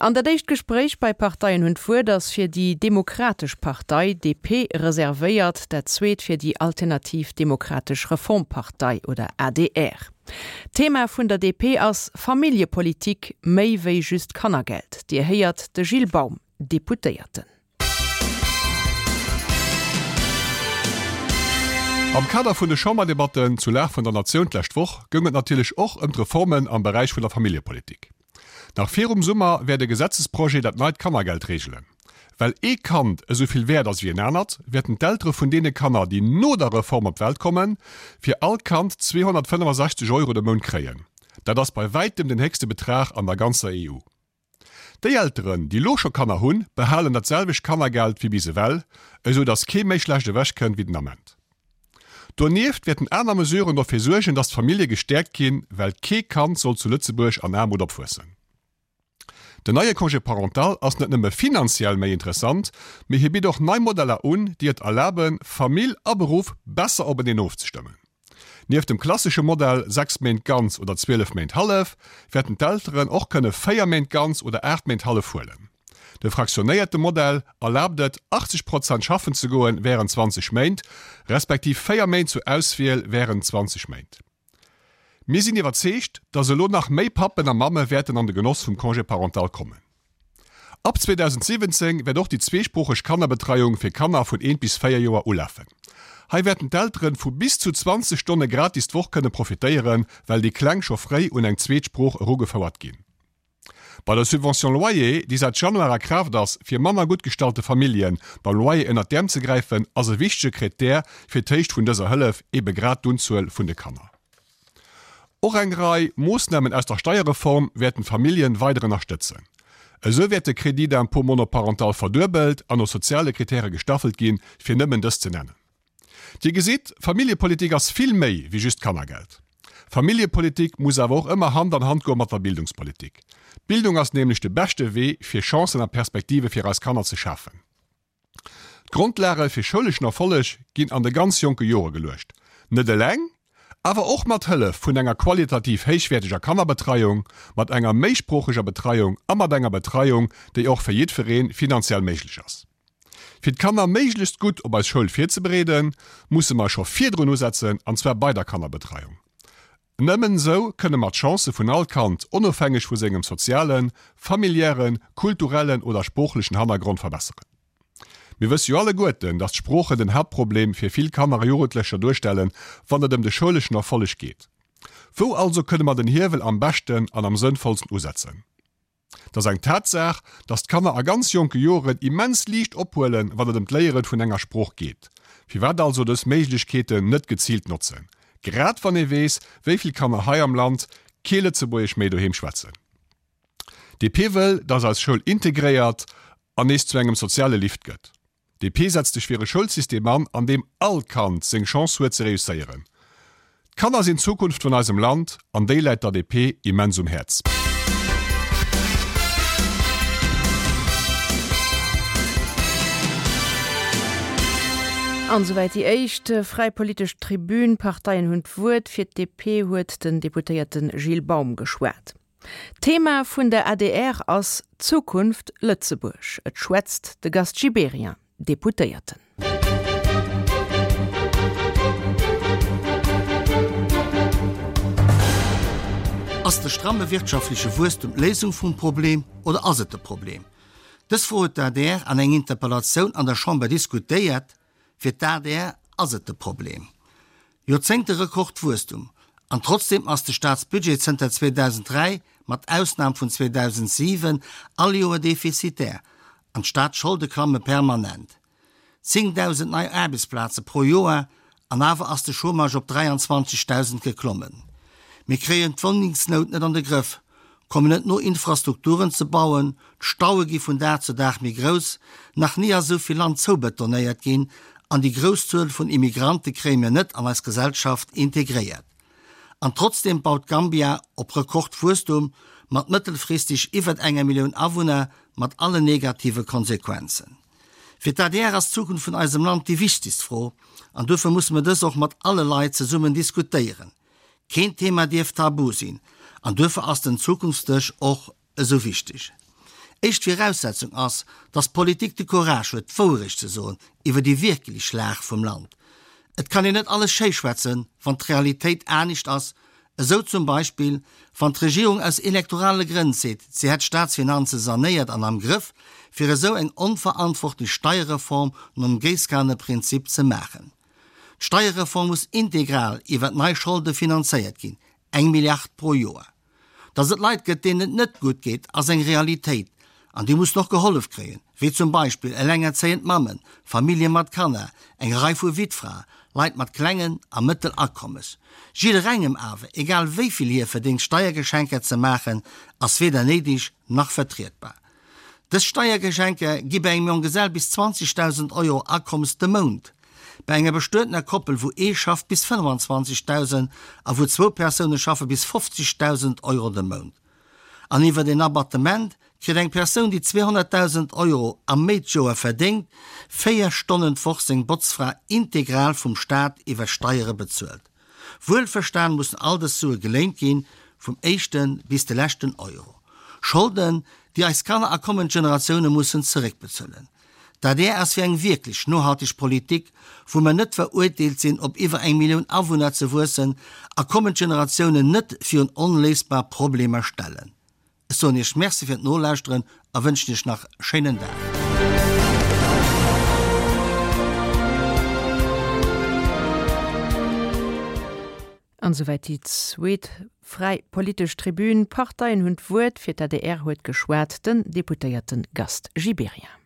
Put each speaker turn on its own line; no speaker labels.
An dat éischt Gespréich bei Parteien hunn d'Wuert ass fir déi Demokratesch Partei, DP, reservéiert, dat zweet fir déi Alternativ Demokratesch Reformpartei oder adr. D'Thema vun der DP ass Familljepolitik, méi wéi just Kannergeld. Dir héiert de Gilles Baum, Deputéierten.
Am Kader vun de Chamberdebatten zur Lag vun der Natioun d'lescht Woch goung et natierlech och ëm d'Reformen am Beräich vun der Familljepolitik. Nach virum Summer wäert e Gesetzesprojet dat neit Kannergeld reegelen. Well ee Kand esou vill wäert ass wéi en anert, wäerten d'Eltere vun deene Kanner, déi no der Reform op d'Welt kommen, fir all Kand 265 Euro de Mount kréien. Dat ass bei wäitem den héchste Betrag an der ganzer EU. Déi Elteren, déi lo scho Kanner hunn, behalen dat selwecht Kannergeld wéi bis ewell, esou datt kee méi schlecht ewech kënnt wéi den Ament. Donieft wäerten aner Mesuren dofir suergen, datt d'Famillje gestäerkt ginn, well kee Kand soll zu Lëtzebuerg an Aarmut opwuessen. Den neie Congé parental ass net nëmme finanziell méi interessant, mee hie bitt och nei Modeller un, déi et erlaben, Famill a Beruff besser openeen ofzestëmmen. Nieft dem klassesche Modell 6 Méint ganz oder 12 Méint hallef, wäerten d'Elteren och kënne 4 Méint ganz oder 8 Méint hallef huelen. De fraktionéierte Modell erlaabt et, 80 Prozent schaffen ze goen wärend 20 Méint, respektiv 4 Méint zur Auswiel wärend 20 Méint. Mir sinn iwwerzeegt, dass elo nach méi Pappen a Mamme wäerten an de Genoss vum Congé parental kommen. Ab 2017 wäert och déi zweesproocheg Kannerbetreiung fir Kanner vun eent bis 4 Joer ulafen. Hei wäerten d'Elteren vu bis zu 20 Stonne gratis d'Woch kënne profitéieren, well déi Kleng scho fréi un eng zweet Sprooch erugefouert ginn. Bei der Subvention loyer, déi säit Januar a Kraaft ass, fir manner gutt gestallte Famillje beim Loyer ënnert d'Äerm ze gräifen, ass e wichtege Krittär fir d'Héicht vun dëser Hëllef ebe grad d'Unzuel vun de Kanner. Och eng Rei Moossnamen aus der Steierreform wäerten d'Familljen weider ënnerstëtzen. Esou wäert de Crédit d'impôt monoparental verduebelt an no soziale Kritäre gestaffelt ginn, fir nëmmen dës ze nennen. Dir gesitt, Familljepolitik ass vill méi wéi just Kannergeld. Familljepolitik muss awer och ëmmer Hand an Hand goe mat der Bildungspolitik. D'Bildung ass nämlech de beschte Wee, fir Chancen a Perspektive fir eis Kanner ze schafen. D'Grondlage fir schouleschen Erfolleg ginn an de ganz jonke Jore geluecht. Net eleng, awer och mat Hëllef vun enger qualitativ héichwäerteger Kannerbetreiung, mat enger méisproocheger Betreiung a mat enger Betreiung, déi och fir jiddweree finanziell méiglech ass. Fir d'Kanner méiglechst gutt op eis Schoul virzebereeden, musse mer scho virdrun usetzen, an zwar bei der Kannerbetreiung. Nëmmen esou kënne mer d'Chancë vun all Kand, onofhängeg vu sengem sozialen, familiären, kulturellen oder sproochlechen Hannergrond verbesseren. Mir wësse jo alleguerten, dass d'Sproochen den Haaptproblem fir vill Kanner a Jugendlecher duerstellen, wann et ëm de schouleschen Erfolleg geet. Wou also kënne mer den Hiewel am beschten an am sënnvollsten usetzen? Et ass eng Tatsaach, dass d'Kanner a ganz jonke Joren immens liicht ophuelen, wann et ëm d'Léiere vun enger Sprooch geet. Firwat also dës Méiglechkeeten net geziilt notzen, grad wann ee weess, wéi vill Kanner hei am Land kee Lëtzebuergesch méi doheem schwätzen? DP wëll, dass eis Schoul integréiert an nees zu engem soziale Lift gëtt. DP setzt sech fir e Schoulsystem an, an deem all Kand seng Chance huet ze reusséieren. D'Kanner sinn d'Zukunft vun eisem Land an déi läit der DP immens um Häerz.
An esouwäit déi éischt fräi politesch Tribün. D'Parteien hunn d'Wuert. Fir d'DP huet den Deputéierte Gilles Baum geschwat. D'Thema vun der adr ass Zukunft Lëtzebuerg. Et schwätzt de Gast Gibéryen, Deputéierten.
Ass de stramme wirtschaftleche Wuesstem d'Léisung vum Problem oder ass et de Problem? Dës Fro huet d'ADR an eng Interpellatioun an der Chamber diskutéiert. Fir d'ADR ass et de Problem. Joerzéngte Rekordwuesstum, an trotzdeem ass de Staatsbudget zënter 2003, mat Ausnam vun 2007, all Joer defizitär an d'Staatsscholde klamme permanent. 10.000 nei Aarbechtsplaze pro Joer, an awer ass de Chômage op 23.000 geklommen. Mir kréien d'Wunnengsnout net an de Grëff, kommen net no Infrastrukturen ze bauen, d'Staue gi vun Dag zu Dag méi grouss, nach ni ass esou vill Land zoubetonéiert ginn an déi grouss Zuel vun Immigrante kréie mir net an eis Gesellschaft integréiert. An trotzdeem baut Gambia op Rekordwuesstum mat mëttelfristeg iwwert enger Millioun Awunner, mat allen negative Konsequenzen. Fir d'ADR ass d'Zukunft vun eisem Land déi wichtegst Fro an duerfir musse mir dës och mat alle Leit zesummen diskutéieren. Keen Thema dierf tabu sinn an duerfir ass den Zukunftsdësch och esou wichteg. Éischt Viraussetzung ass, datt d'Politik de Courage huet, d'Wouerecht ze soen iwwer déi wierklech Lag vum Land. Et kann een net alles schéischwätzen, wann d'Realitéit anescht ass, esou zum Beispill, wann d'Regierung aus elektorale Grënn seet, si hätt d'Staatsfinanze sanéiert an am Grëff, fir esou eng onverantwortlech Steierreform nom Géisskaneprinzip ze maachen. D'Steierreform muss integral iwwert nei Scholde finanzéiert ginn, eng Milliard pro Joer. Datt et Leit gëtt, deenen et net gutt geet, ass eng Realitéit an déi mussen och gehollef kréien, wéi zum Beispill elengerzéiend Mammen, Famillje mat Kanner, eng Rei vu Wittfrae, Leit mat klengen a mëttel Akommes. Jidderengem awer, egal wéi vill hie verdéngt, Steiergeschenker ze maachen, ass weder néideg nach vertrietbar. Dës Steiergeschenker gi bei engem Jonggesell bis 20.000 Euro Akommes de Mount, bei enger bestuetener Koppel, wou ee schafft, bis 25.000 a wou zwou Persoune schaffe bis 50.000 Euro de Mount. An iwwert een Abattement kritt eng Persoun, déi 200.000 Euro a méi d'Joer verdéngt, 4 Stonnen d'Woch seng Botzfra integral vum Staat iwwer Steiere bezuelt. Wuelverstan mussen all dës Sue geléint ginn, vum éischte bis de leschten Euro. Scholden, déi eis Kanner a kommend Generatioune mussen zeréckbezuelen. D'adr ass fir eng wierklech nohalteg Politik, wou mer net veruerteelt sinn, op iwwer eng Millioun Awunner ze wuessen a kommend Generatiounen net virun onléisbar Problemer stellen. Ech soen Iech Merci fir d'Nolauschteren a wënschen Iech nach e schéinen Dag.
An esouwäit déi zweet fräi politesch Tribün. D'Parteien hunn d'Wuert. Fir d'ADR huet geschwat den Deputéierte Gast Gibéryen.